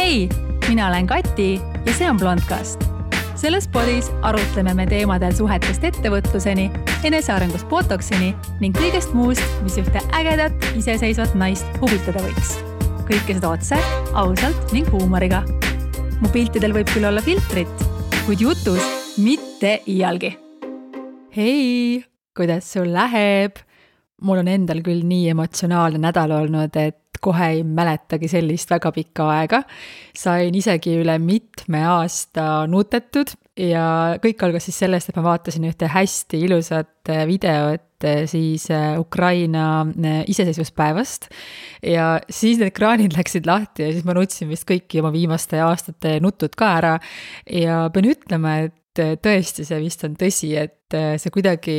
Hei, mina olen Kati ja see on Blondcast. Selles podis arutleme me teemadel suhetest ettevõtluseni, enesearengust botoksini ning kõigest muust, mis ühte ägedat, iseseisvat naist huvitada võiks. Kõike seda otse, ausalt ning huumoriga. Mu piltidel võib küll olla filtrit, kuid jutus mitte iialgi. Hei, kuidas sul läheb? Mul on endal küll nii emotsionaalne nädal olnud, et kohe ei mäletagi sellist väga pikka aega. Sain isegi üle mitme aasta nutetud ja kõik algas siis sellest, et ma vaatasin ühte hästi ilusat videot siis Ukraina iseseisvuspäevast ja siis need ekraanid läksid lahti ja siis ma nutsin vist kõiki oma viimaste aastate nutud ka ära ja pean ütlema, et tõesti see vist on tõsi, et see kuidagi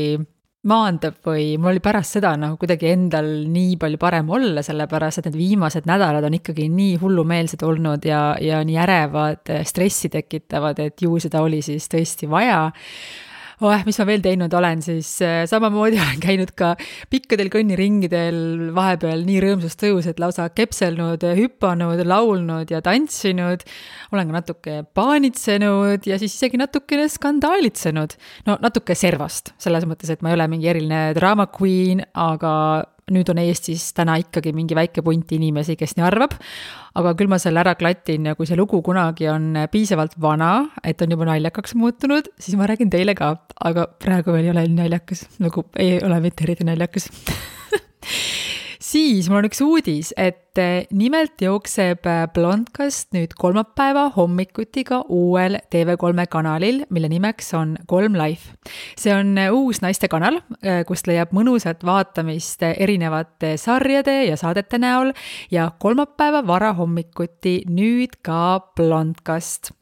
maandab või mul oli pärast seda kuidagi endal nii palju parem olla, sellepärast, et need viimased nädalad on ikkagi nii hullumeelsed olnud ja nii ärevad, stressi tekitavad, et ju seda oli siis tõesti vaja. Mis ma veel teinud olen, siis samamoodi olen käinud ka pikkadel kõnniringidel vahepeal nii rõõmsust tõus, et lausa kepselnud, hüppanud, laulnud ja tantsinud. Olen ka natuke paanitsenud ja siis isegi natukene skandaalitsenud. No natuke servast, selles mõttes, et ma ei ole mingi eriline drama queen, aga nüüd on Eestis täna ikkagi mingi väike punt inimesi, kes nii arvab, aga küll ma selle ära klatin ja kui see lugu kunagi on piisavalt vana, et on juba naljakaks muutunud, siis ma räägin teile ka, aga praegu veel ei ole naljakas, ei ole mitte eriti naljakas. Siis mul on üks uudis, et nimelt jookseb Blondcast nüüd kolmapäeva hommikuti ka uuel TV3 kanalil, mille nimeks on 3 Life. See on uus naiste kanal, kust leiab mõnusat vaatamist erinevate sarjade ja saadete näol ja kolmapäeva varahommikuti nüüd ka Blondcast.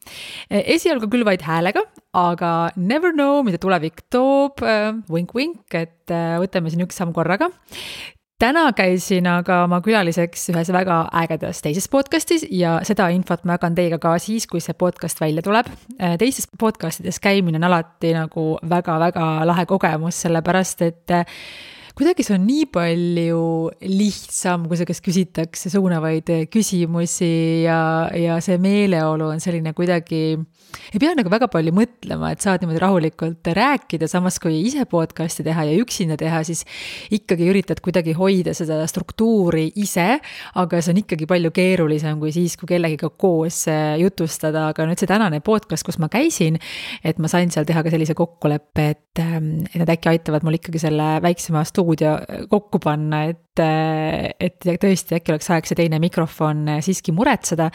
Esialgu küll vaid häälega, aga never know, mida tulevik toob, wink-wink, et võtame siin üks samm korraga. Täna käisin aga oma külaliseks ühes väga ägedas teises podcastis ja seda infot ma jagan teiega ka siis, kui see podcast välja tuleb. Teistes podcastides käimine on alati väga-väga lahe kogemus, sellepärast, et kuidagi see on nii palju lihtsam, kui see kes küsitakse suunavaid küsimusi ja see meeleolu on selline kuidagi, ei pea väga palju mõtlema, et saad niimoodi rahulikult rääkida, samas kui ise podcasti teha ja üksinda teha, siis ikkagi üritad kuidagi hoida seda struktuuri ise, aga see on ikkagi palju keerulisem kui siis, kui kellegiga koos jutustada, aga nüüd see tänane podcast, kus ma käisin, et ma sain seal teha ka sellise kokkuleppe, et nad äkki aitavad mul ikkagi selle väiksema stuudio kokku panna, et tõesti äkki oleks aeg see teine mikrofon siiski muretseda,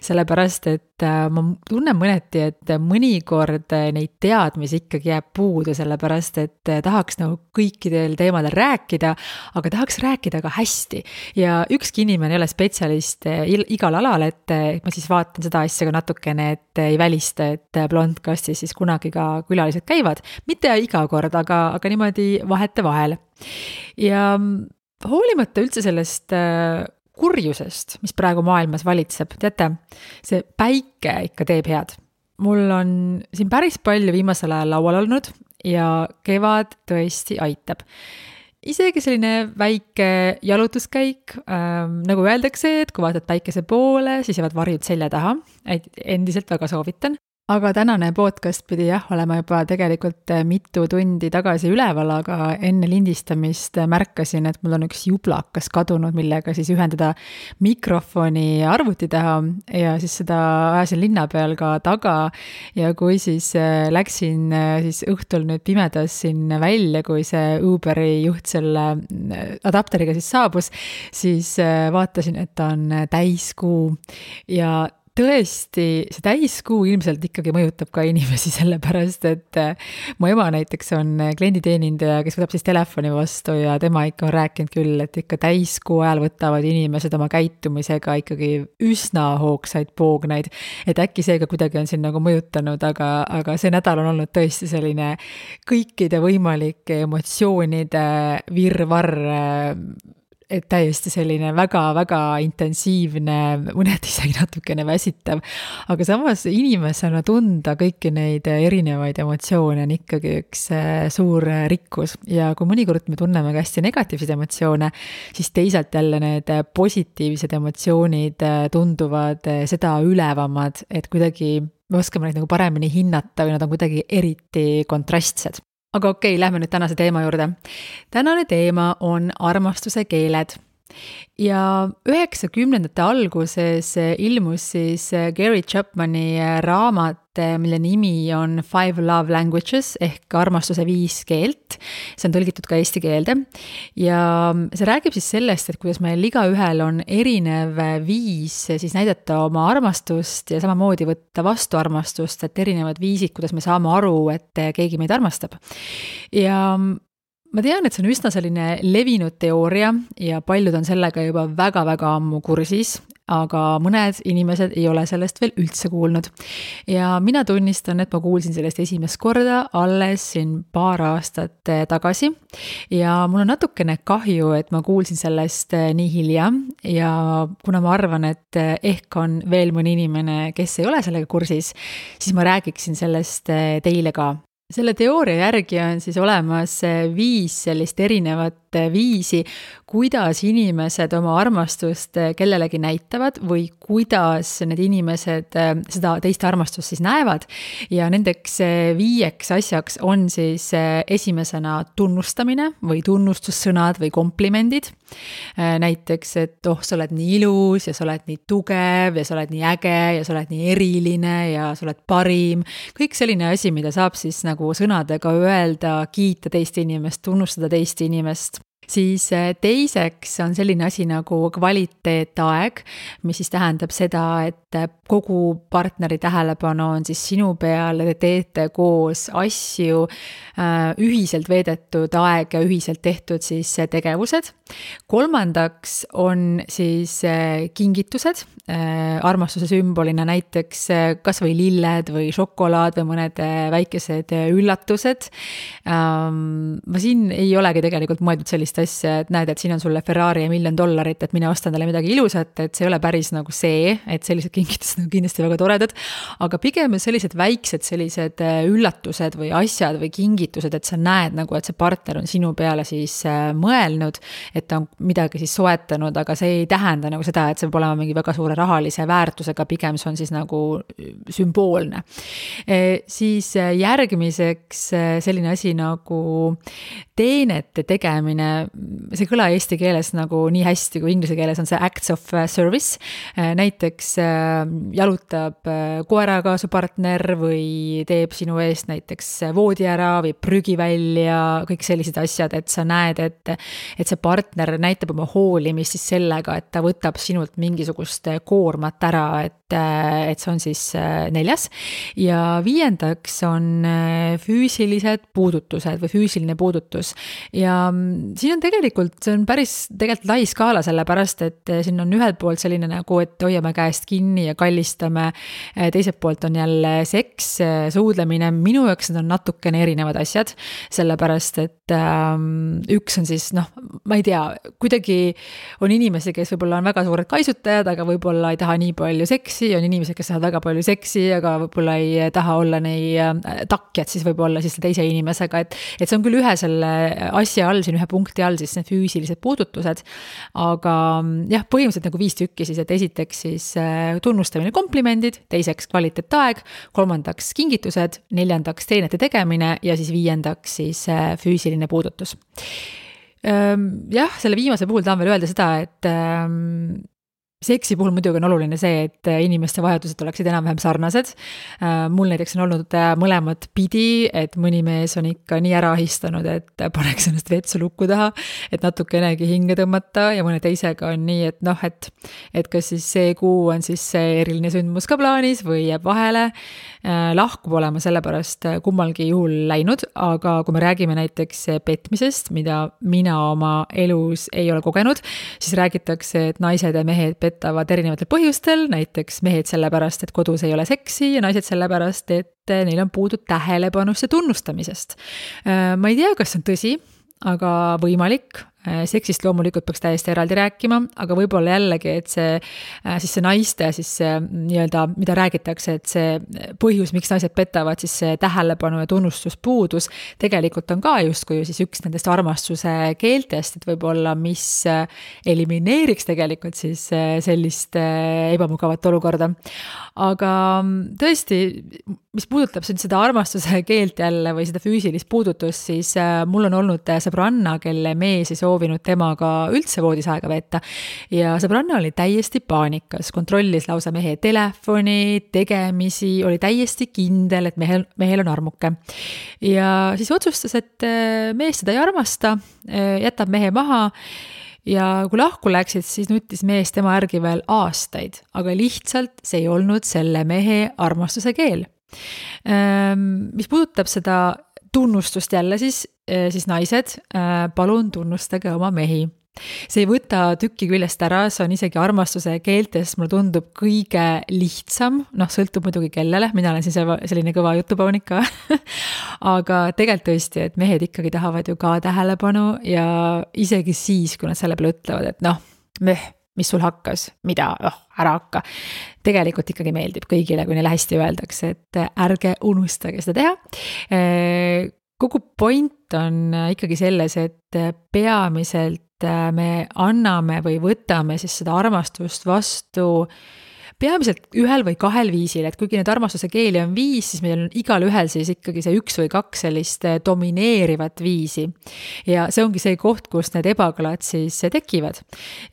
sellepärast, et ma tunnen mõneti, et mõnikord neid teadmisi ikkagi jääb puudu, sellepärast, et tahaks kõikidel teemadel rääkida, aga tahaks rääkida ka hästi. Ja ükski inimene ei ole spetsialist igal alal, et ma siis vaatan seda asja ka natukene, et ei välista, et Blondcastis siis kunagi ka külalised käivad. Mitte iga kord, aga niimoodi vahete vahel. Ja hoolimata üldse sellest kurjusest, mis praegu maailmas valitseb, teate, see päike ikka teeb head. Mul on siin päris palju viimasel ajal laual olnud ja kevad tõesti aitab. Isegi selline väike jalutuskäik, nagu öeldakse, et kui vaatad päikese poole, siis jäävad varjud selja taha, et endiselt väga soovitan. Aga tänane podcast pidi olema juba tegelikult mitu tundi tagasi üleval, aga enne lindistamist märkasin, et mul on üks jublakas kadunud, millega siis ühendada mikrofoni arvuti taha ja siis seda ajasin linna peal ka taga ja kui siis läksin siis õhtul nüüd pimedas siin välja, kui see Uberi juht selle adapteriga siis saabus, siis vaatasin, et ta on täiskuu ja tõesti, see täiskuu ilmselt ikkagi mõjutab ka inimesi sellepärast, et mu ema näiteks on klienditeenindaja, kes võtab siis telefoni vastu ja tema ikka on rääkinud küll, et ikka täiskuu ajal võtavad inimesed oma käitumisega ikkagi üsna hoogsaid poognaid, et äkki seega kuidagi on siin mõjutanud, aga see nädal on olnud tõesti selline kõikide võimalike emotsioonide virvarr et täiesti selline väga-väga intensiivne, mõned isegi natukene väsitav, aga samas inimesena tunda kõiki neid erinevaid emotsioone on ikkagi üks suur rikkus ja kui mõnikord me tunneme ka hästi negatiivseid emotsioone, siis teisalt jälle need positiivsed emotsioonid tunduvad seda ülevamad, et kuidagi me oskame neid nagu paremini hinnata või nad on kuidagi eriti kontrastsed. Aga okei, lähme nüüd tänase teema juurde. Tänane teema on armastuse keeled. Ja 90ndate alguses ilmus siis Gary Chapmani raamat, mille nimi on 5 Love Languages ehk armastuse 5 keelt. See on tõlgitud ka eesti keelde. Ja see räägib siis sellest, et kuidas meil igaühel on erinev viis siis näidata oma armastust ja samamoodi võtta vastu armastust, et erinevad viisid, kuidas me saame aru, et keegi meid armastab. Ja ma tean, et see on üsna selline levinud teooria ja paljud on sellega juba väga-väga ammu kursis, aga mõned inimesed ei ole sellest veel üldse kuulnud. Ja mina tunnistan, et ma kuulsin sellest esimest korda alles siin paar aastat tagasi ja mul on natukene kahju, et ma kuulsin sellest nii hilja ja kuna ma arvan, et ehk on veel mõni inimene, kes ei ole sellega kursis, siis ma räägiksin sellest teile ka. Selle teooria järgi on siis olemas 5 sellist erinevat viisi, kuidas inimesed oma armastust kellelegi näitavad või kuidas need inimesed seda teist armastust siis näevad. Ja nendeks 5 asjaks on siis esimesena tunnustamine või tunnustussõnad või komplimendid. Näiteks, et sa oled nii ilus ja sa oled nii tugev ja sa oled nii äge ja sa oled nii eriline ja sa oled parim. Kõik selline asi, mida saab siis nagu sõnadega öelda, kiita teist inimest, tunnustada teist inimest. Siis teiseks on selline asi nagu kvaliteetaeg, mis siis tähendab seda, et kogu partneri tähelepanu on siis sinu peal, te teete koos asju, ühiselt veedetud aeg ja ühiselt tehtud siis tegevused. Kolmandaks on siis kingitused, armastuse sümbolina näiteks kas või lilled või šokolaad või mõned väikesed üllatused. Ma siin ei olegi tegelikult mõeldud sellist asja, et näed, et siin on sulle Ferrari ja $1 000 000, et mine ostan talle midagi ilusat, et see ei ole päris nagu see, et sellised kingitused on kindlasti väga toredad, aga pigem sellised väiksed sellised üllatused või asjad või kingitused, et sa näed nagu, et see partner on sinu peale siis mõelnud, et ta on midagi siis soetanud, aga see ei tähenda nagu seda, et see peab olema mingi väga suure rahalise väärtusega, pigem see on siis nagu sümboolne. Siis järgmiseks selline asi nagu teenete tegemine, see kõla eesti keeles nagu nii hästi kui inglise keeles on see acts of service. Näiteks jalutab koeraga su partner või teeb sinu eest näiteks voodi ära või prügi välja, kõik sellised asjad, et sa näed, et see partner näitab oma hoolimist siis sellega, et ta võtab sinult mingisugust koormat ära, et see on siis 4. Ja 5. on füüsilised puudutused või füüsiline puudutus. Ja siin on tegelikult, see on päris tegelikult lai skaala sellepärast, et siin on ühelt poolt selline nagu, et hoiame käest kinni ja kallistame, teiselt poolt on jälle seks, suudlemine, minu jaoks need on natukene erinevad asjad, sellepärast, et üks on siis, ma ei tea, kuidagi on inimesi, kes võib-olla on väga suured kaisutajad, aga võib-olla ei taha nii palju seksi, on inimesed, kes tahavad väga palju seksi, aga võib-olla ei taha olla nii takjad siis võib-olla siis teise inimesega, et see on küll ühe selle asja all, siin ühe punkti all siis need füüsilised puudutused, aga jah, põhimõtteliselt nagu 5 tükki siis, et esiteks siis tunnustamine, komplimendid, teiseks kvaliteetaeg, 3. kingitused, 4. teenete tegemine ja siis 5. siis füüsiline puudutus. Jah, selle viimase puhul tahan veel öelda seda, et seksi puhul muidugi on oluline see, et inimeste vajadused oleksid enam-vähem sarnased. Mul näiteks on olnud mõlemad pidi, et mõni mees on ikka nii ära ahistanud, et paneks ennast vetsu lukku taha, et natukenegi hinge tõmmata ja mõne teisega on nii, et kas siis see kuu on siis see eriline sündmus ka plaanis või jääb vahele. Lahku olema sellepärast kummalgi juhul läinud, aga kui me räägime näiteks petmisest, mida mina oma elus ei ole kogenud, siis räägitakse, et naised ja mehed petavad erinevatel põhjustel, näiteks mehed sellepärast, et kodus ei ole seksi ja naised sellepärast, et neil on puudu tähelepanust ja tunnustamisest. Ma ei tea, kas see on tõsi, aga võimalik. Seksist loomulikult peaks täiesti eraldi rääkima, aga võib-olla jällegi, et siis see naiste siis see nii-öelda, mida räägitakse, et see põhjus, miks naised petavad, siis see tähelepanu ja tunnustuspuudus tegelikult on ka justkui siis üks nendest armastuse keeltest, et võib-olla mis elimineeriks tegelikult siis sellist ebamugavat olukorda. Aga tõesti, mis puudutab seda armastuse keelt jälle või seda füüsilist puudutust, siis mul on olnud sõbranna, kelle mees ei soovinud temaga üldse voodis aega veeta ja sõbranna oli täiesti paanikas, kontrollis lausa mehe telefoni, tegemisi, oli täiesti kindel, et mehel on armuke. Ja siis otsustas, et mees seda ei armasta, jätab mehe maha ja kui lahku läksid, siis nutis mees tema järgi veel aastaid, aga lihtsalt see ei olnud selle mehe armastuse keel. Mis puudutab seda tunnustust jälle, siis naised, palun tunnustage oma mehi. See ei võta tükki küljest ära, see on isegi armastuse keeltes, mulle tundub kõige lihtsam, sõltub muidugi kellele, mina olen siis selline kõva jutupaunik ka, aga tegelikult tõesti, et mehed ikkagi tahavad ju ka tähelepanu ja isegi siis, kui nad selle peale ütlevad, et mis sul hakkas, mida, ära hakka. Tegelikult ikkagi meeldib kõigile, kui neile hästi öeldakse, et ärge unustage seda teha. Kogu point on ikkagi selles, et peamiselt me anname või võtame siis seda armastust vastu peamiselt ühel või kahel viisil, et kuigi need armastuse keeli on 5, siis meil on igal ühel siis ikkagi see 1 või 2 sellist domineerivat viisi. Ja see ongi see koht, kus need ebakõlad siis tekivad,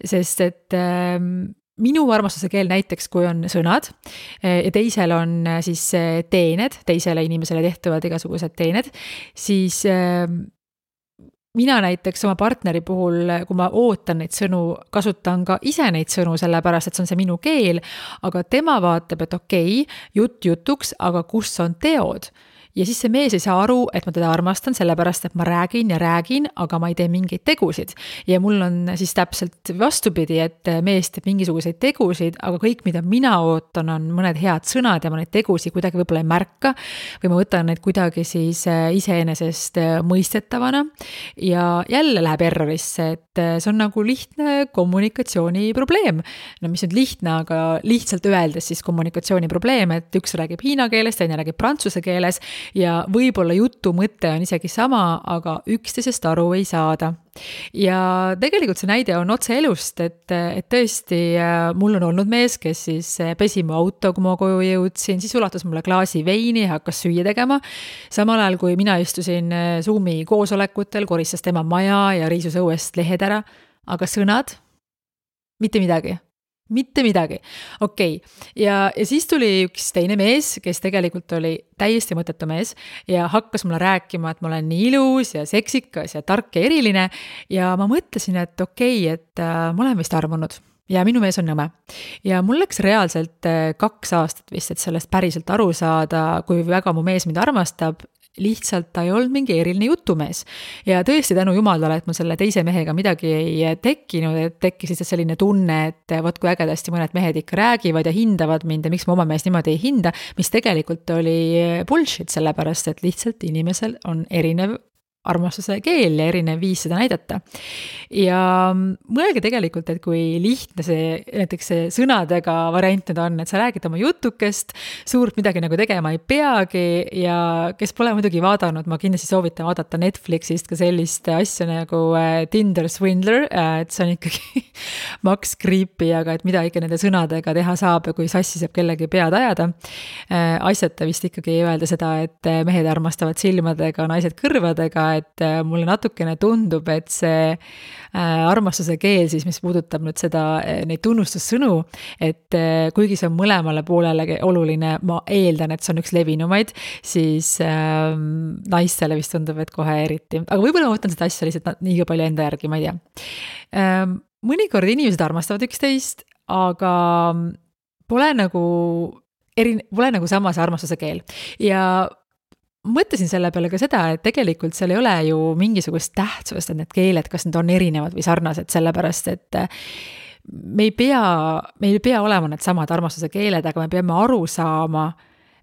sest et minu armastuse keel näiteks, kui on sõnad ja teisel on siis teened, teisele inimesele tehtuvad igasugused teened, siis mina näiteks oma partneri puhul, kui ma ootan neid sõnu, kasutan ka ise neid sõnu, sellepärast, et see on see minu keel, aga tema vaatab, et okei, jutt jutuks, aga kus on teod? Ja siis see mees ei saa aru, et ma teda armastan, sellepärast, et ma räägin ja räägin, aga ma ei tee mingeid tegusid. Ja mul on siis täpselt vastupidi, et mees teeb mingisuguseid tegusid, aga kõik, mida mina ootan, on mõned head sõnad ja ma neid tegusid kuidagi võib-olla ei märka või ma võtan neid kuidagi siis iseenesest mõistetavana ja jälle läheb errorisse, et see on nagu lihtne kommunikatsiooni probleem. No mis on lihtne, aga lihtsalt öeldes siis kommunikatsiooni probleem, et üks räägib hiina keeles, teine räägib prantsuse keeles ja võib-olla jutu mõte on isegi sama, aga üksteisest aru ei saada. Ja tegelikult see näide on otse elust, et tõesti mul on olnud mees, kes siis pesi mu auto, kui ma koju jõudsin, siis ulatas mulle klaasi veini ja hakkas süüa tegema. Samal ajal, kui mina istusin Zoomi koosolekutel, koristas tema maja ja riisus õuest lehed ära, aga sõnad, mitte midagi. Mitte midagi. Okei. Ja siis tuli üks teine mees, kes tegelikult oli täiesti mõttetu mees ja hakkas mulle rääkima, et ma olen nii ilus ja seksikas ja tark ja eriline ja ma mõtlesin, et okei, et ma olen vist armunud ja minu mees on nõme. Ja mul läks reaalselt 2 aastat vist, et sellest päriselt aru saada, kui väga mu mees mind armastab, lihtsalt ta ei olnud mingi eriline jutumees. Ja tõesti tänu jumalale, et mul selle teise mehega midagi ei tekkinud, et tekkis lihtsalt selline tunne, et vot kui ägedasti mõned mehed ikka räägivad ja hindavad mind ja miks ma oma meest niimoodi ei hinda, mis tegelikult oli bullshit, sellepärast, et lihtsalt inimesel on erinev armastuse keel ja erinev viis seda näidata. Ja mõelge tegelikult, et kui lihtne see näiteks see sõnadega variant nüüd on, et sa räägid oma jutukest, suurt midagi nagu tegema ei peagi ja kes pole muidugi vaadanud, ma kindlasti soovitan vaadata Netflixist ka sellist asja nagu Tinder Swindler, et see on ikkagi maks creepy, aga et mida ikka nende sõnadega teha saab ja kui sassi saab kellegi pead ajada. Asjata vist ikkagi ei öelda seda, et mehed armastavad silmadega, naised kõrvadega, et mulle natukene tundub, et see armastuse keel siis, mis puudutab nüüd seda, neid tunnustussõnu, et kuigi see on mõlemale poolele oluline, ma eeldan, et see on üks levinumaid, siis naistele vist tundub, et kohe eriti. Aga võib-olla ma võtan seda asja lihtsalt nii palju enda järgi, ma ei tea. Mõnikord inimesed armastavad üksteist, aga pole nagu sama see armastuse keel. Ja mõtlesin selle peale ka seda, et tegelikult seal ei ole ju mingisugust tähtsust, et need keeled, kas need on erinevad või sarnased, sellepärast, et meil ei pea olema need samad armastuse keeled, aga me peame aru saama,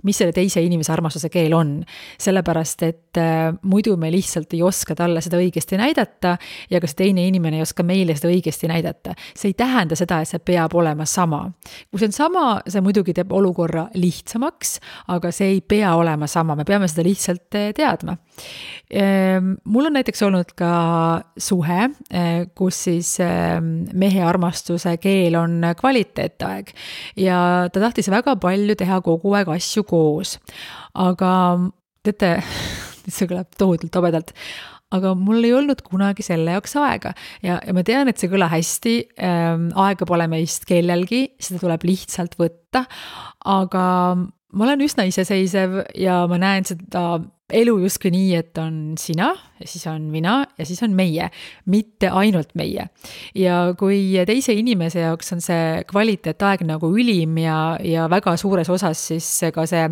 mis selle teise inimese armastuse keel on. Sellepärast, et muidu me lihtsalt ei oska talle seda õigesti näidata ja ka see teine inimene ei oska meile seda õigesti näidata. See ei tähenda seda, et see peab olema sama. Kui see on sama, see muidugi teeb olukorra lihtsamaks, aga see ei pea olema sama, me peame seda lihtsalt teadma. Mul on näiteks olnud ka suhe, kus siis mehe armastuse keel on kvaliteetaeg ja ta tahtis väga palju teha kogu aeg asju koos. Aga teate, see kõlab tohutult tobedalt, aga mul ei olnud kunagi selle jaoks aega ja ma tean, et see kõla hästi, aega pole meist kellelgi, seda tuleb lihtsalt võtta, aga ma olen üsna iseseisev ja ma näen seda elu justkui nii, et on sina ja siis on mina ja siis on meie, mitte ainult meie. Ja kui teise inimese jaoks on see kvaliteetaeg nagu ülim ja väga suures osas siis ka see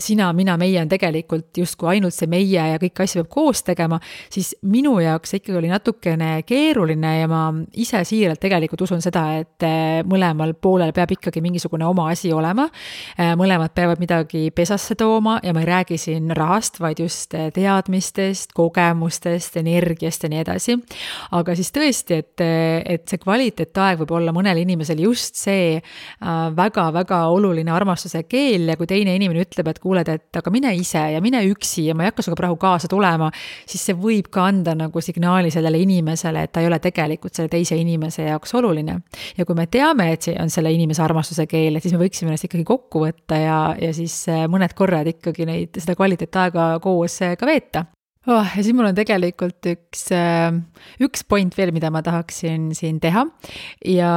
sina, mina, meie on tegelikult justkui ainult see meie ja kõik asja peab koos tegema, siis minu jaoks ikkagi oli natukene keeruline ja ma ise siiralt tegelikult usun seda, et mõlemal poolel peab ikkagi mingisugune oma asi olema, mõlemad peavad midagi pesasse tooma ja ma ei räägi siin rahast, vaid just teadmistest, kogemustest, energiast ja nii edasi. Aga siis tõesti, et see kvaliteetaeg võib olla mõnel inimesel just see väga-väga oluline armastuse keel ja kui teine inimene ütleb, et kuuled, et aga mine ise ja mine üksi ja ma ei hakka suga praegu kaasa tulema, siis see võib ka anda nagu signaali sellele inimesele, et ta ei ole tegelikult selle teise inimese jaoks oluline. Ja kui me teame, et see on selle inimese armastuse keel, siis me võiksime ennast ikkagi kokku võtta ja siis mõned korrad ikkagi seda kvaliteetaega koos ka veeta. Ja siis mul on tegelikult üks point veel, mida ma tahaksin siin teha ja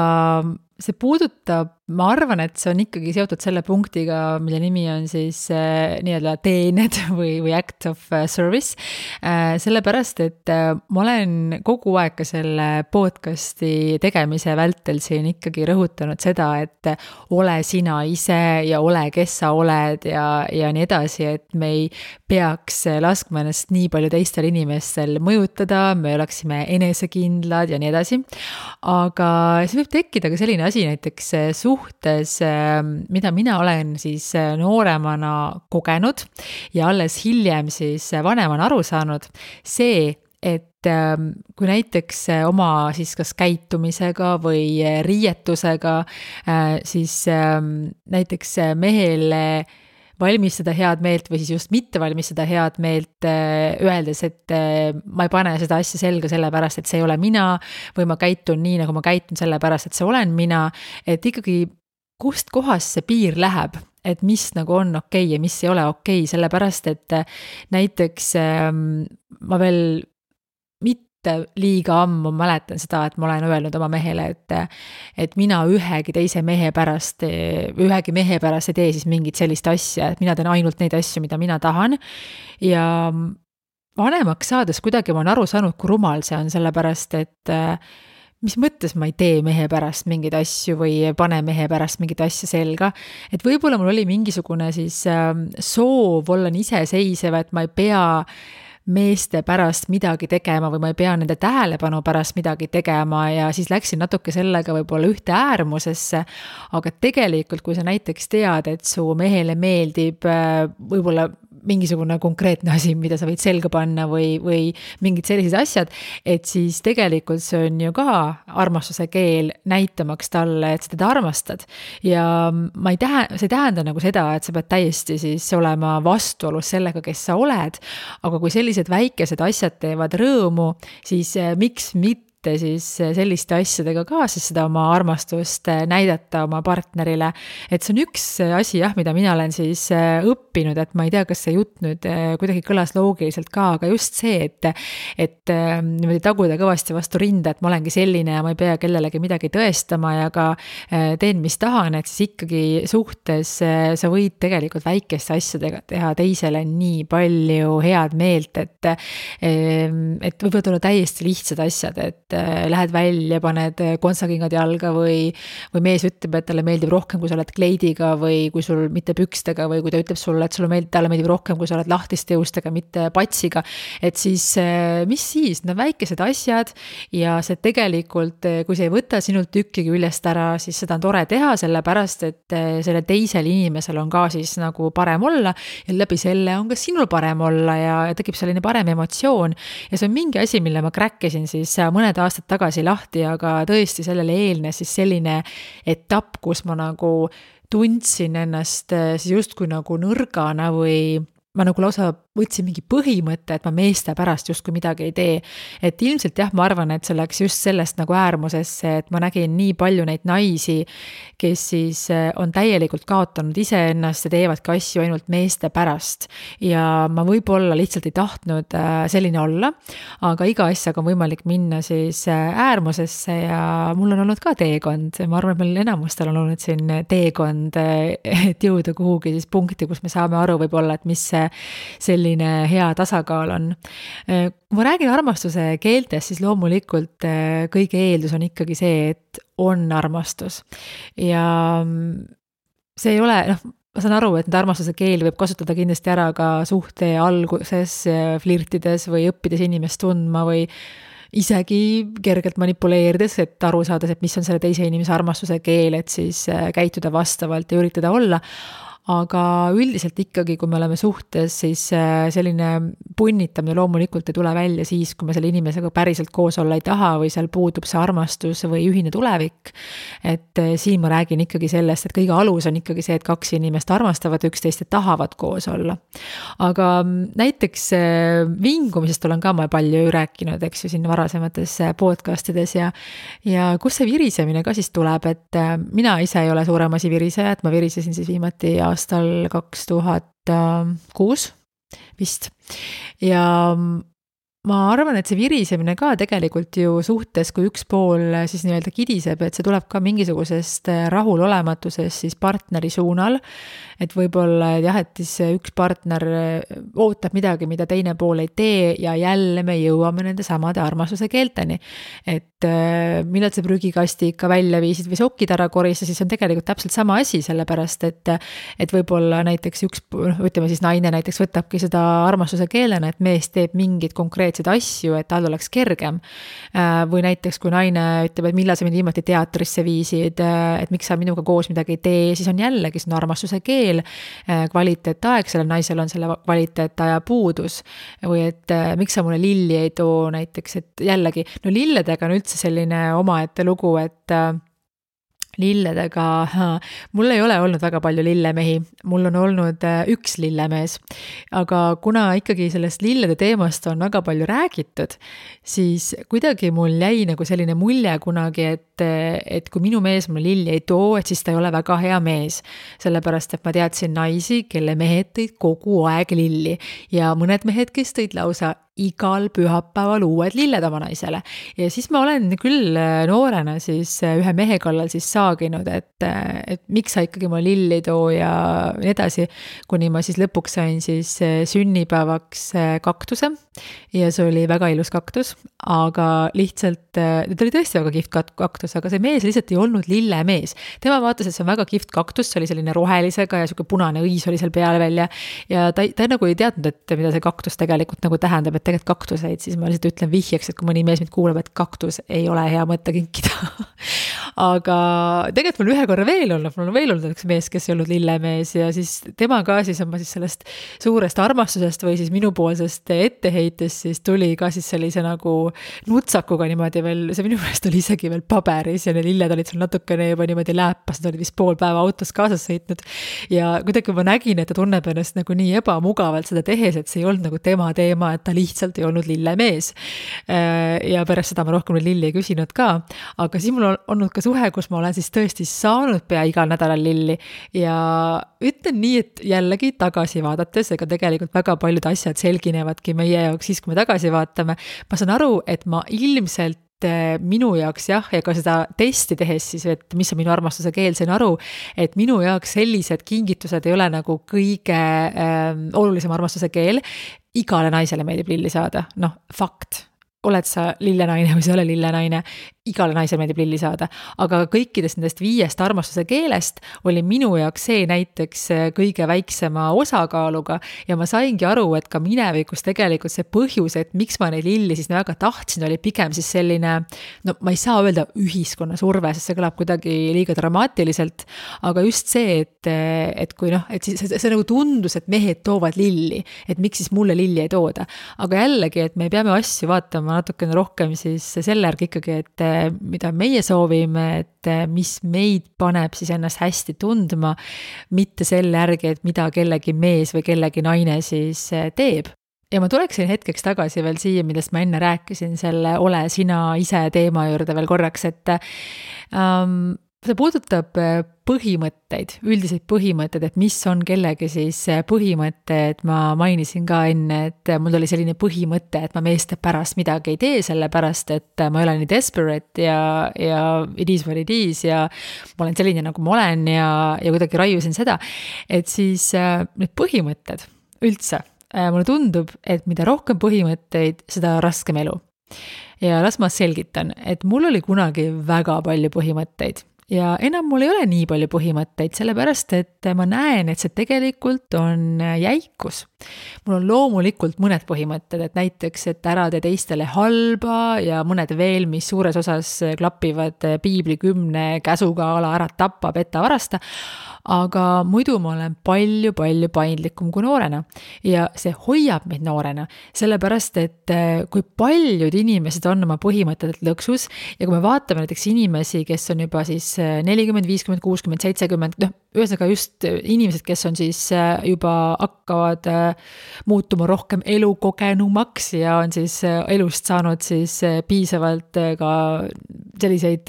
see puudutab, ma arvan, et see on ikkagi seotud selle punktiga, mille nimi on siis nii-öelda teened või act of service, sellepärast, et ma olen kogu aeg ka selle podcasti tegemise vältel siin ikkagi rõhutanud seda, et ole sina ise ja ole, kes sa oled ja nii edasi, et me ei peaks laskma ennast nii palju teistel inimestel mõjutada, me oleksime enesekindlad ja nii edasi, aga see võib tekkida ka selline asi näiteks suhtes, mida mina olen siis nooremana kogenud ja alles hiljem siis vanemana aru saanud, see, et kui näiteks oma siis kas käitumisega või riietusega siis näiteks mehele valmistada head meelt või siis just mitte valmistada head meelt, öeldes, et ma ei pane seda asja selga sellepärast, et see ei ole mina või ma käitun nii, nagu ma käitun sellepärast, et see olen mina, et ikkagi kust kohast see piir läheb, et mis nagu on okei ja mis ei ole okei, sellepärast, et näiteks ma veel liiga ammu mäletan seda, et ma olen öelnud oma mehele, et mina ühegi mehe pärast ei tee siis mingit sellist asja, et mina teen ainult neid asju, mida mina tahan ja vanemaks saades kuidagi ma olen aru saanud, kui rumal see on, sellepärast, et mis mõttes ma ei tee mehe pärast mingeid asju või ei pane mehe pärast mingit asja selga, et võib-olla mul oli mingisugune siis soov olla iseseisev, et ma ei pea meeste pärast midagi tegema või ma ei pea nende tähelepanu pärast midagi tegema ja siis läksin natuke sellega võib-olla ühte äärmusesse, aga tegelikult, kui sa näiteks tead, et su mehele meeldib võib-olla mingisugune konkreetne asi, mida sa võid selga panna või mingid sellised asjad, et siis tegelikult see on ju ka armastuse keel näitamaks talle, et sa teda armastad. Ja see ei tähenda nagu seda, et sa pead täiesti siis olema vastuolus sellega, kes sa oled, aga kui sellised väikesed asjad teevad rõõmu, siis miks mitte siis selliste asjadega ka siis seda oma armastust näidata oma partnerile. Et see on üks asi, mida mina olen siis õppinud, et ma ei tea, kas see jutt nüüd kuidagi kõlas loogiliselt ka, aga just see, et niimoodi taguda kõvasti vastu rinda, et ma olengi selline ja ma ei pea kellelegi midagi tõestama ja ka teen, mis tahan, et siis ikkagi suhtes sa võid tegelikult väikeste asjadega teha teisele nii palju head meelt, et võivad olla täiesti lihtsad asjad, et lähed välja, paned kontsakingad jalga või mees ütleb, et talle meeldib rohkem, kui sa oled kleidiga või kui sul mitte pükstega või kui ta ütleb sulle, et talle meeldib rohkem, kui sa oled lahtiste juustega, mitte patsiga, et siis mis siis, need väikesed asjad ja see tegelikult, kui see ei võta sinult tükki küljest ära, siis seda on tore teha, sellepärast, et selle teisel inimesel on ka siis nagu parem olla ja läbi selle on ka sinul parem olla ja tekib selline parem emotsioon ja see on mingi asi, mille ma kräkkisin siis mõned aastad tagasi lahti, aga tõesti sellele eelnes siis selline etapp, kus ma nagu tundsin ennast siis justkui nagu nõrgana või ma nagu lausa võtsin mingi põhimõtte, et ma meeste pärast justkui midagi ei tee. Et ilmselt jah, ma arvan, et see läks just sellest nagu äärmusesse, et ma nägin nii palju neid naisi, kes siis on täielikult kaotanud iseennast ja teevadki asju ainult meeste pärast. Ja ma võib-olla lihtsalt ei tahtnud selline olla, aga iga asjaga on võimalik minna siis äärmusesse ja mul on olnud ka teekond. Ma arvan, et meil enamustel on olnud siin teekond, et jõuda kuhugi siis punkti, kus me saame aru võib-olla, et mis selline hea tasakaal on. Kui ma räägin armastuse keeltest, siis loomulikult kõige eeldus on ikkagi see, et on armastus. Ja see ei ole, ma saan aru, et need armastuse keeli võib kasutada kindlasti ära ka suhte alguses, flirtides või õppides inimest tundma või isegi kergelt manipuleerides, et aru saada, et mis on selle teise inimese armastuse keel, et siis käituda vastavalt ja üritada olla. Aga üldiselt ikkagi, kui me oleme suhtes, siis selline punnitamine loomulikult ei tule välja siis, kui me selle inimesega päriselt koos olla ei taha või seal puudub see armastus või ühine tulevik. Et siin ma räägin ikkagi sellest, et kõige alus on ikkagi see, et kaks inimest armastavad üksteist ja tahavad koos olla. Aga näiteks vingumisest olen ka ma palju rääkinud, eks ju, siin varasemates podcastides ja kus see virisemine ka siis tuleb, et mina ise ei ole suurem asi viriseja, et ma virisesin siis viimati aastal 2006 vist. Ja ma arvan, et see virisemine ka tegelikult ju suhtes, kui üks pool siis nii-öelda kidiseb, et see tuleb ka mingisugusest rahulolematusest siis partneri suunal, et võib-olla jah, et siis üks partner ootab midagi, mida teine pool ei tee ja jälle me jõuame nende samade armastuse keelteni. Et millal see prügikasti ikka välja viisid või sokid ära korista, siis on tegelikult täpselt sama asi, sellepärast, et võib-olla näiteks ütleme siis naine näiteks võtabki seda armastuse keelena, et mees teeb mingid konkreetsed asju, et tal oleks kergem. Või näiteks, kui naine ütleb, et millal sa mind viimati teatrisse viisid, et miks sa minuga koos midagi ei tee, siis on jällegi see armastuse keel, kvaliteetaeg, sellel naisel on selle kvaliteetaja puudus. Või et miks sa mulle lilli ei too näiteks, et jällegi, no lilledega on üldse selline omaette lugu, et lilledega, mul ei ole olnud väga palju lillemehi, mul on olnud üks lillemees, aga kuna ikkagi sellest lillede teemast on väga palju räägitud, siis kuidagi mul jäi nagu selline mulje kunagi, et kui minu mees mulle lilli ei too, et siis ta ei ole väga hea mees, sellepärast et ma teadsin naisi, kelle mehed tõid kogu aeg lilli ja mõned mehed, kes tõid lausa igal pühapäeval uued lilled oma naisele. Ja siis ma olen küll noorena siis ühe mehe kallal siis saaginud, et miks sa ikkagi ma lilli too ja nii edasi, kuni ma siis lõpuks sain siis sünnipäevaks kaktuse ja see oli väga ilus kaktus, aga lihtsalt, ta oli tõesti väga kihvt kaktus, aga see mees lihtsalt ei olnud lillemees. Tema vaatas, et see on väga kihvt kaktus, see oli selline rohelisega ja selline punane õis oli seal peal välja ja ta nagu ei teadnud, et mida see kaktus tegelikult nagu tähendab, et tegelikult kaktuseid, siis ma lihtsalt ütlen vihjeks, et kui mõni mees mind kuuleb, et kaktus ei ole hea mõte kinkida. Aga tegelikult mul ühe korra veel olnud üks mees, kes ei olnud lillemees ja siis tema ka siis on ma siis sellest suurest armastusest või siis minupoolsest etteheitest siis tuli ka siis sellise nagu nutsakuga niimoodi veel, see minu meelest oli isegi veel paberis ja need lilled olid seal natukene juba niimoodi lääpas, nad olid vist pool päeva autos kaasas sõitnud ja kuidagi ma nägin, et ta tunneb ennast nagu nii ebamugavalt seda tehes, et see ei olnud nagu tema teema, et ta lihtsalt ei olnud lillemees. Ja pärast seda ma rohkem lilli ei küsinud ka, aga siis mul on olnud ka suhe, kus ma olen siis tõesti saanud pea igal nädalal lilli ja ütlen nii, et jällegi tagasi vaadates, ega tegelikult väga paljud asjad selginevadki meie jaoks siis, kui me tagasi vaatame. Ma saan aru, et ma ilmselt minu jaoks jah, ja ka seda testi tehes siis, et mis on minu armastuse keel, sain aru, et minu jaoks sellised kingitused ei ole nagu kõige olulisem armastuse keel. Igale naisele meeldib lilli saada, fakt. oled sa lillenaine või sa ei ole lillenaine, igale naisele meeldib lilli saada, aga kõikidest nendest 5 armastuse keelest oli minu jaoks see näiteks kõige väiksema osakaaluga ja ma saingi aru, et ka minevikus tegelikult see põhjus, et miks ma neid lilli siis väga tahtsin, oli pigem siis selline, no ma ei saa öelda ühiskonna surve, sest see kõlab kuidagi liiga dramaatiliselt, aga just see, et kui et see nagu tundus, et mehed toovad lilli, et miks siis mulle lilli ei tooda, aga jällegi, et me peame asju vaatama natukene rohkem siis selle järgi ikkagi, et mida meie soovime, et mis meid paneb siis ennast hästi tundma, mitte selle järgi, et mida kellegi mees või kellegi naine siis teeb. Ja ma tuleksin hetkeks tagasi veel siia, millest ma enne rääkisin, selle ole sina ise teema juurde veel korraks, et see puudutab põhimõtteid, üldiseid põhimõtteid, et mis on kellegi siis põhimõtted, ma mainisin ka enne, et mul oli selline põhimõte, et ma meeste pärast midagi ei tee, sellepärast, et ma ei ole nii desperate ja it is what it is ja ma olen selline, nagu ma olen ja kuidagi raiusin seda, et siis need põhimõtted üldse, mulle tundub, et mida rohkem põhimõtteid, seda raskem elu. Ja las ma selgitan, et mul oli kunagi väga palju põhimõtteid. Ja enam mul ei ole nii palju põhimõtteid, sellepärast, et ma näen, et see tegelikult on jäikus. Mul on loomulikult mõned põhimõtted, et näiteks, et ära tee teistele halba ja mõned veel, mis suures osas klapivad piibli 10 käsuga ala ära tappa, petta, varasta, aga muidu ma olen palju paindlikum kui noorena ja see hoiab meid noorena, sellepärast, et kui paljud inimesed on oma põhimõtted lõksus ja kui me vaatame näiteks inimesi, kes on juba siis 40, 50, 60, 70, ühesõnaga just inimesed, kes on siis juba hakkavad muutuma rohkem elukogenumaks ja on siis elust saanud siis piisavalt ka selliseid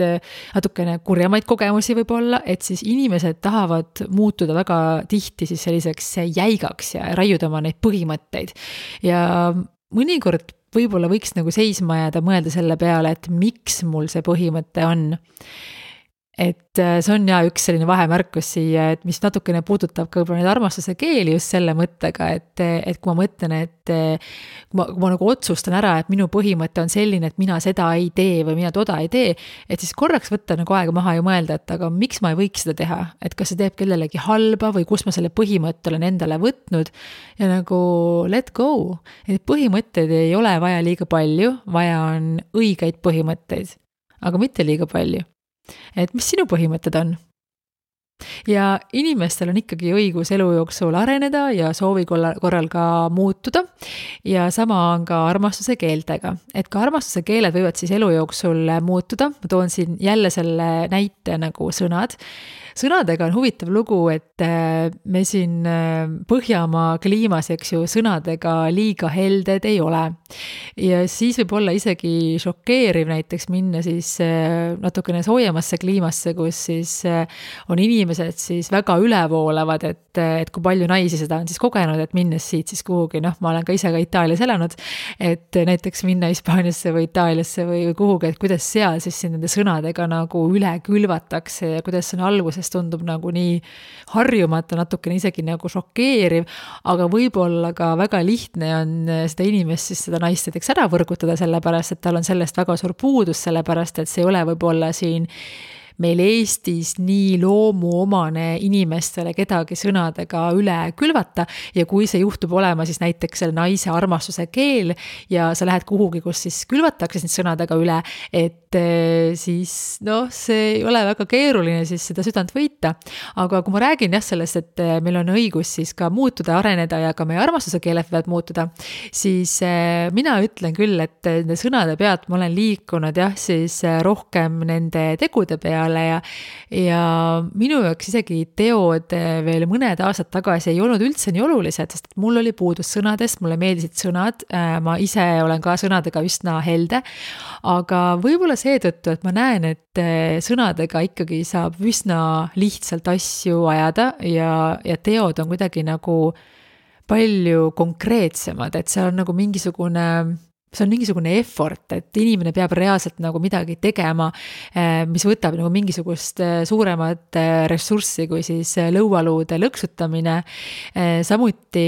natukene kurjamaid kogemusi võib-olla, et siis inimesed tahavad muutuda väga tihti siis selliseks jäigaks ja raiuda oma neid põhimõtteid. Ja mõnikord võib-olla võiks nagu seisma jääda mõelda selle peale, et miks mul see põhimõte on. Et see on üks selline vahemärkus siia, et mis natukene puudutab ka võib-olla neid armastuse keeli just selle mõttega, et kui ma mõtlen, et kui ma nagu otsustan ära, et minu põhimõte on selline, et mina seda ei tee või mina toda ei tee, et siis korraks võtta nagu aega maha ja mõelda, et aga miks ma ei võiks seda teha, et kas see teeb kellelegi halba või kus ma selle põhimõtte olen endale võtnud ja nagu let go, et põhimõtteid ei ole vaja liiga palju, vaja on õigeid põhimõtteid, aga mitte liiga palju. Et mis sinu põhimõtted on? Ja inimestel on ikkagi õigus elu jooksul areneda ja soovi korral ka muutuda ja sama on ka armastuse keeltega. Et ka armastuse keeled võivad siis elu jooksul muutuda. Ma toon siin jälle selle näite nagu sõnad. Sõnadega on huvitav lugu, et me siin Põhjamaa kliimas, eks ju, sõnadega liiga helded ei ole. Ja siis võib olla isegi šokeeriv näiteks minna siis natukene soojemasse kliimasse, kus siis on inimesed siis väga ülevoolavad, et kui palju naisi seda on siis kogenud, et minnes siit siis kuhugi, ma olen ka ise ka Itaalias elanud, et näiteks minna Hispaaniasse või Itaaliasse või kuhugi, et kuidas seal siis nende sõnadega nagu üle külvatakse ja kuidas see on alguses tundub nagu nii harjumata, natukene isegi nagu šokeeriv, aga võib-olla ka väga lihtne on seda inimest siis seda naist näiteks ära võrgutada sellepärast, et tal on sellest väga suur puudus, sellepärast et see ei ole võib-olla siin meil Eestis nii loomuomane inimestele kedagi sõnadega üle külvata ja kui see juhtub olema siis näiteks selle naise armastuse keel ja sa lähed kuhugi, kus siis külvatakse sind sõnadega üle, et siis see ei ole väga keeruline siis seda südant võita. Aga kui ma räägin sellest, et meil on õigus siis ka muutuda, areneda ja ka meie armastuse keeled võivad muutuda, siis mina ütlen küll, et nende sõnade pealt ma olen liikunud siis rohkem nende tegude peale ja minu jaoks isegi teod veel mõned aastad tagasi ei olnud üldse nii olulised, sest mul oli puudus sõnadest, mulle meeldisid sõnad, ma ise olen ka sõnadega üsna helde, aga võib-olla seetõttu, et ma näen, et sõnadega ikkagi saab üsna lihtsalt asju ajada ja teod on kuidagi nagu palju konkreetsemad, et seal on nagu mingisugune see on mingisugune effort, et inimene peab reaalselt nagu midagi tegema, mis võtab nagu mingisugust suuremat ressurssi kui siis lõualuude lõksutamine. Samuti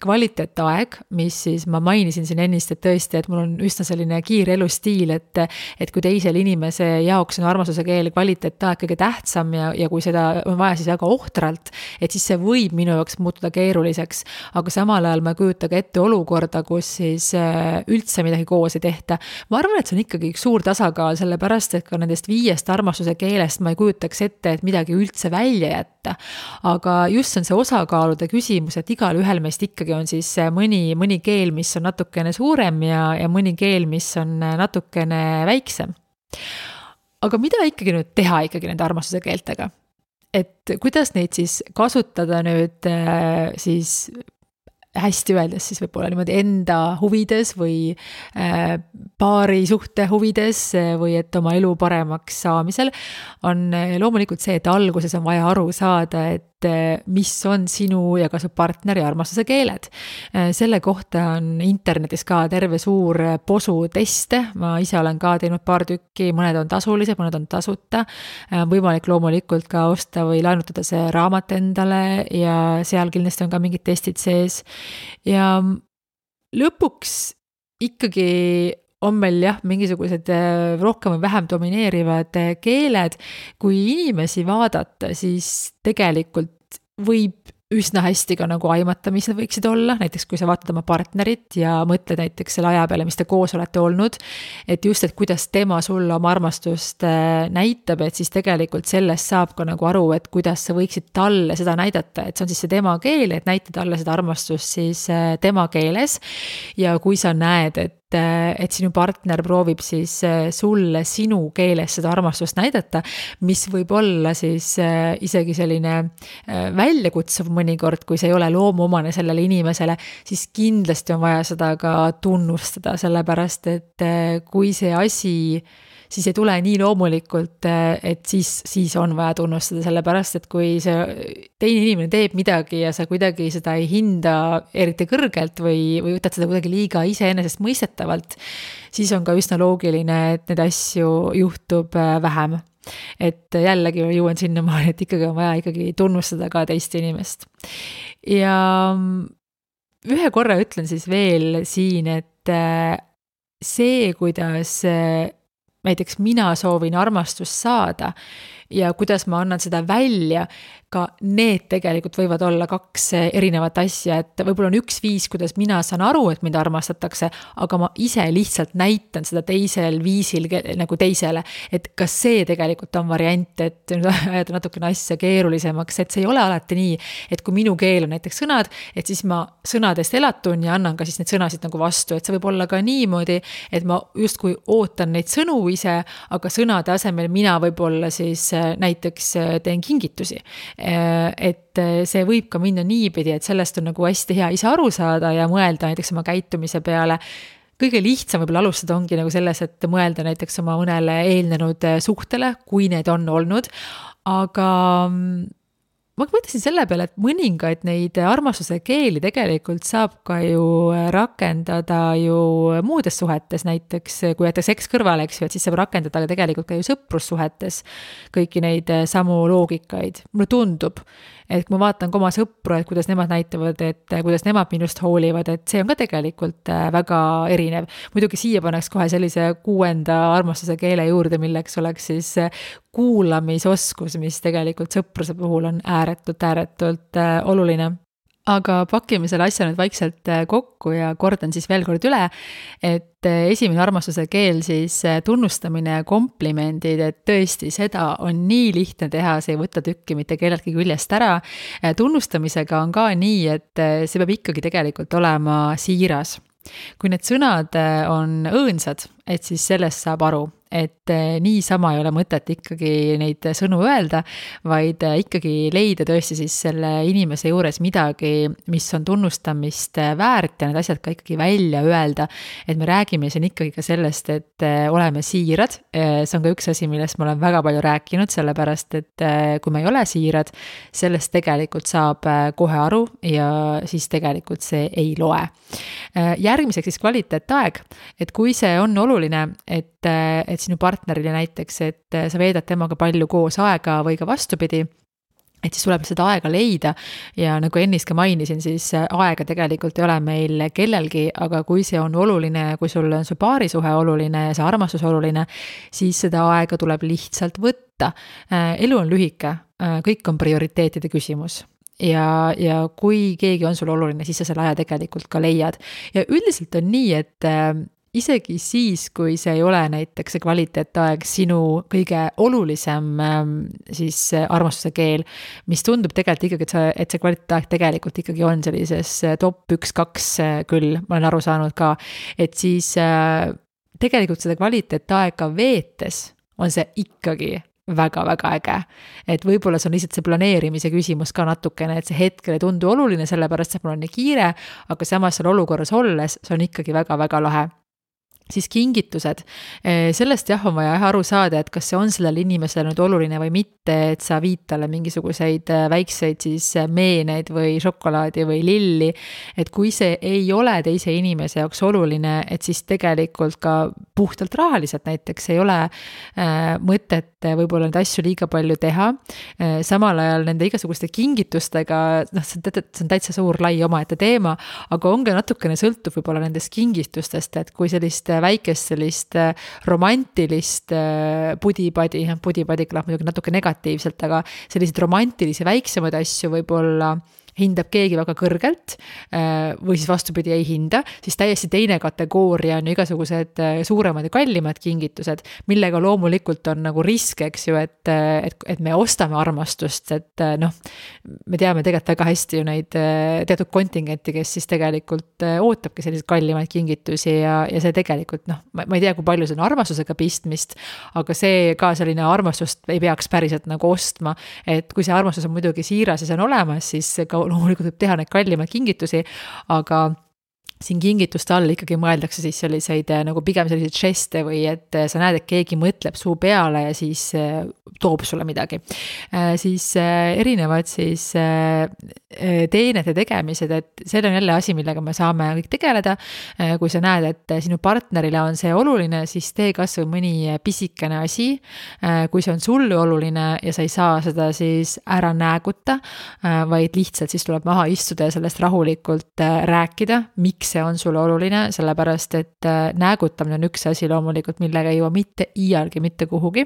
kvaliteetaeg, mis siis ma mainisin siin ennist, et tõesti, et mul on üsna selline kiire elustiil, et kui teisel inimese jaoks on armastuse keel kvaliteetaeg kõige tähtsam ja kui seda on vaja siis väga ohtralt, et siis see võib minu jaoks muutuda keeruliseks, aga samal ajal ma ei kujuta ka ette olukorda, kus siis üldse midagi koos ei tehta. Ma arvan, et see on ikkagi üks suur tasakaal, sellepärast, et ka nendest 5 armastuse keelest ma ei kujutaks ette, et midagi üldse välja jätta. Aga just on see osakaalude küsimus, et igal ühel meist ikkagi on siis mõni keel, mis on natukene suurem ja mõni keel, mis on natukene väiksem. Aga mida ikkagi nüüd teha ikkagi nende armastuse keeltega? Et kuidas neid siis kasutada nüüd siis hästi öeldes siis võib-olla niimoodi enda huvides või paari suhte huvides või et oma elu paremaks saamisel on loomulikult see, et alguses on vaja aru saada, et mis on sinu ja ka su partneri armastuse keeled. Selle kohta on internetis ka terve suur posu teste, ma ise olen ka teinud paar tükki, mõned on tasulised, mõned on tasuta, võimalik loomulikult ka osta või laenutada see raamat endale ja seal kindlasti on ka mingid testid sees ja lõpuks ikkagi on meil jah, mingisugused rohkem või vähem domineerivad keeled. Kui inimesi vaadata, siis tegelikult võib üsna hästi ka nagu aimata, mis need võiksid olla, näiteks kui sa vaatad oma partnerit ja mõtled näiteks selle aja peale, mis te koos olete olnud, et just, et kuidas tema sulle oma armastust näitab, et siis tegelikult sellest saab ka nagu aru, et kuidas sa võiksid talle seda näidata, et see on siis see tema keel, et näita talle seda armastust siis tema keeles ja kui sa näed, et sinu partner proovib siis sulle sinu keeles seda armastust näidata, mis võib olla siis isegi selline väljakutsuv mõnikord, kui see ei ole loomuomane sellele inimesele, siis kindlasti on vaja seda ka tunnustada, sellepärast et kui see asi siis ei tule nii loomulikult, et siis on vaja tunnustada, sellepärast, et kui see teine inimene teeb midagi ja sa kuidagi seda ei hinda eriti kõrgelt või võtad seda kuidagi liiga iseenesest mõistetavalt, siis on ka üsna loogiline, et need asju juhtub vähem. Et jällegi jõuan sinnamaani, et ikkagi on vaja ikkagi tunnustada ka teist inimest. Ja ühe korra ütlen siis veel siin, et see, kuidas näiteks mina soovin armastust saada ja kuidas ma annan seda välja, ka need tegelikult võivad olla 2 erinevat asja, et võib-olla on üks viis, kuidas mina saan aru, et mind armastatakse, aga ma ise lihtsalt näitan seda teisel viisil nagu teisele, et kas see tegelikult on variant, et ajada natukene asja keerulisemaks, et see ei ole alati nii, et kui minu keel on näiteks sõnad, et siis ma sõnadest elatun ja annan ka siis need sõnasid nagu vastu, et see võib olla ka niimoodi, et ma justkui ootan neid sõnu ise, aga sõnade asemel mina võib-olla siis näiteks teen kingitusi. Et see võib ka minna niipidi, et sellest on nagu hästi hea ise aru saada ja mõelda näiteks oma käitumise peale. Kõige lihtsam võib-olla alustada ongi nagu selles, et mõelda näiteks oma mõnele eelnenud suhtele, kui need on olnud, aga ma mõtlesin selle peale, et mõningaid neid armastuse keeli tegelikult saab ka ju rakendada ju muudes suhetes, näiteks kui jätta seks kõrvale, eks ju, et siis saab rakendada tegelikult ka ju sõprussuhetes kõiki neid samu loogikaid. Mulle tundub, et kui ma vaatan ka oma sõpru, et kuidas nemad näitavad, et kuidas nemad minust hoolivad, et see on ka tegelikult väga erinev. Muidugi siia paneks kohe sellise 6. armastuse keele juurde, milleks oleks siis kuulamisoskus, mis tegelikult sõpruse puhul on ääretult oluline. Aga pakime selle asja nüüd vaikselt kokku ja kordan siis veel kord üle, et esimene armastuse keel siis tunnustamine ja komplimendid, et tõesti seda on nii lihtne teha, see ei võta tükki mitte kelleltki küljest ära. Tunnustamisega on ka nii, et see peab ikkagi tegelikult olema siiras. Kui need sõnad on õõnsad, et siis sellest saab aru, et niisama ei ole mõtet ikkagi neid sõnu öelda, vaid ikkagi leida tõesti siis selle inimese juures midagi, mis on tunnustamist väärt ja need asjad ka ikkagi välja öelda. Et me räägime siin ikkagi ka sellest, et oleme siirad. See on ka üks asi, millest ma olen väga palju rääkinud, sellepärast, et kui me ei ole siirad, sellest tegelikult saab kohe aru ja siis tegelikult see ei loe. Järgmiseks siis kvaliteetaeg, et kui see on oluline, et sinu partnerile näiteks, et sa veedad temaga palju koos aega või ka vastupidi, et siis tuleb seda aega leida ja nagu ennist ka mainisin, siis aega tegelikult ei ole meil kellelgi, aga kui see on oluline, kui sul on su paarisuhe oluline ja see armastus oluline, siis seda aega tuleb lihtsalt võtta. Elu on lühike, kõik on prioriteetide küsimus. Ja kui keegi on sul oluline, siis sa selle aja tegelikult ka leiad. Ja üldiselt on nii, et isegi siis, kui see ei ole näiteks see kvaliteetaeg sinu kõige olulisem siis armastuse keel, mis tundub tegelikult ikkagi, et see kvaliteetaeg tegelikult ikkagi on sellises top 1-2 küll, ma olen aru saanud ka, et siis tegelikult seda kvaliteetaega veetes on see ikkagi väga-väga äge. Et võib-olla see on lihtsalt see planeerimise küsimus ka natukene, et see hetkel ei tundu oluline, sellepärast et mul on nii kiire, aga samas seal olukorras olles, see on ikkagi väga-väga lahe. Siis kingitused. Sellest on vaja aru saada, et kas see on sellele inimesele nüüd oluline või mitte, et sa viid talle mingisuguseid väikseid siis meeneid või šokolaadi või lilli, et kui see ei ole teise inimese jaoks oluline, et siis tegelikult ka puhtalt rahaliselt näiteks ei ole mõtet võib-olla neid asju liiga palju teha. Samal ajal nende igasuguste kingitustega, see on täitsa suur lai omaette teema, aga ongi natukene sõltub võib-olla nendest kingitustest, et kui sellist väikest sellist romantilist pudipadi kõlab muidugi natuke negatiivselt, aga selliseid romantilisi väiksemaid asju võib-olla hindab keegi väga kõrgelt või siis vastupidi ei hinda, siis täiesti teine kategooria on igasugused suuremad ja kallimad kingitused, millega loomulikult on nagu risk, eks ju, et me ostame armastust, et me teame tegelikult väga hästi ju neid teatud kontingenti, kes siis tegelikult ootabki selliseid kallimaid kingitusi ja see tegelikult, ma ei tea, kui palju see on armastusega pistmist, aga see ka selline armastust ei peaks päriselt nagu ostma, et kui see armastus on muidugi siiras ja see on olemas, siis ka loomulikult võib teha neid kallimaid kingitusi, aga siin kingituste all ikkagi mõeldakse siis selliseid nagu pigem selliseid žeste või et sa näed, et keegi mõtleb suu peale ja siis toob sulle midagi. Siis erinevad siis teenete tegemised, et see on jälle asi, millega me saame kõik tegeleda. Kui sa näed, et sinu partnerile on see oluline, siis tee kas või mõni pisikene asi. Kui see on sulle oluline ja sa ei saa seda siis ära nääguta, vaid lihtsalt siis tuleb maha istuda ja sellest rahulikult rääkida, miks see on sulle oluline, sellepärast et näägutamine on üks asi loomulikult, millega ei jõua mitte iialgi mitte kuhugi.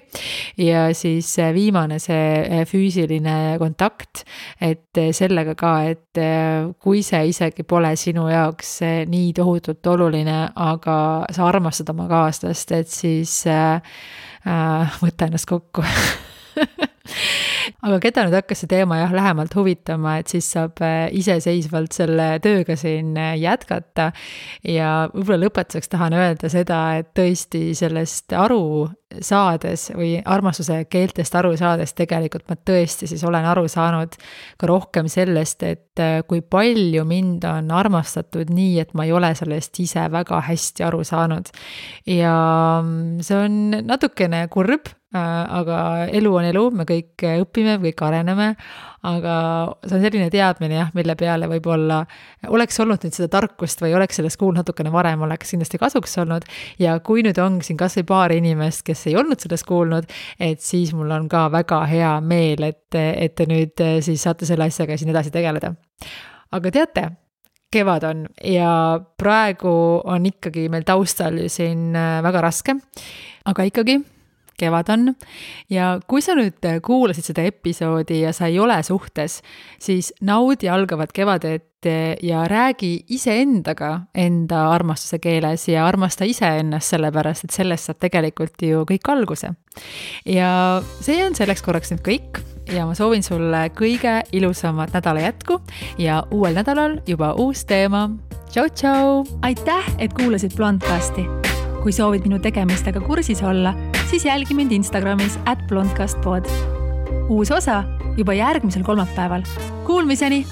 Ja siis viimane see füüsiline kontakt, et sellega ka, et kui see isegi pole sinu jaoks nii tohutult oluline, aga sa armastad oma kaaslast, et siis võta ennast kokku. Aga keda nüüd hakkas see teema lähemalt huvitama, et siis saab iseseisvalt selle tööga siin jätkata ja võib-olla lõpetuseks tahan öelda seda, et tõesti sellest aru saades või armastuse keeltest aru saades tegelikult ma tõesti siis olen aru saanud ka rohkem sellest, et kui palju mind on armastatud nii, et ma ei ole sellest ise väga hästi aru saanud. Ja see on natukene kurb, aga elu on elu, me kõik õpime, kõik areneme, aga see on selline teadmine mille peale võib-olla oleks olnud nüüd seda tarkust või oleks sellest kuulnud natukene varem, oleks kindlasti kasuks olnud ja kui nüüd on siin kas või paar inimest, kes ei olnud sellest kuulnud, et siis mul on ka väga hea meel, et te nüüd siis saate selle asjaga siin edasi tegeleda. Aga teate, kevad on ja praegu on ikkagi meil taustal siin väga raske, aga ikkagi kevad on ja kui sa nüüd kuulasid seda episoodi ja sa ei ole suhtes, siis naudi algavat kevadet ja räägi iseendaga enda armastuse keeles ja armasta iseennast sellepärast, et sellest saab tegelikult ju kõik alguse. Ja see on selleks korraks nüüd kõik ja ma soovin sulle kõige ilusamat nädala jätku ja uuel nädalal juba uus teema. Tšau, tšau! Aitäh, et kuulasid Blondcasti! Kui soovid minu tegemistega kursis olla, siis jälgi mind Instagramis @blondcastpod. Uus osa juba järgmisel kolmapäeval. Kuulmiseni!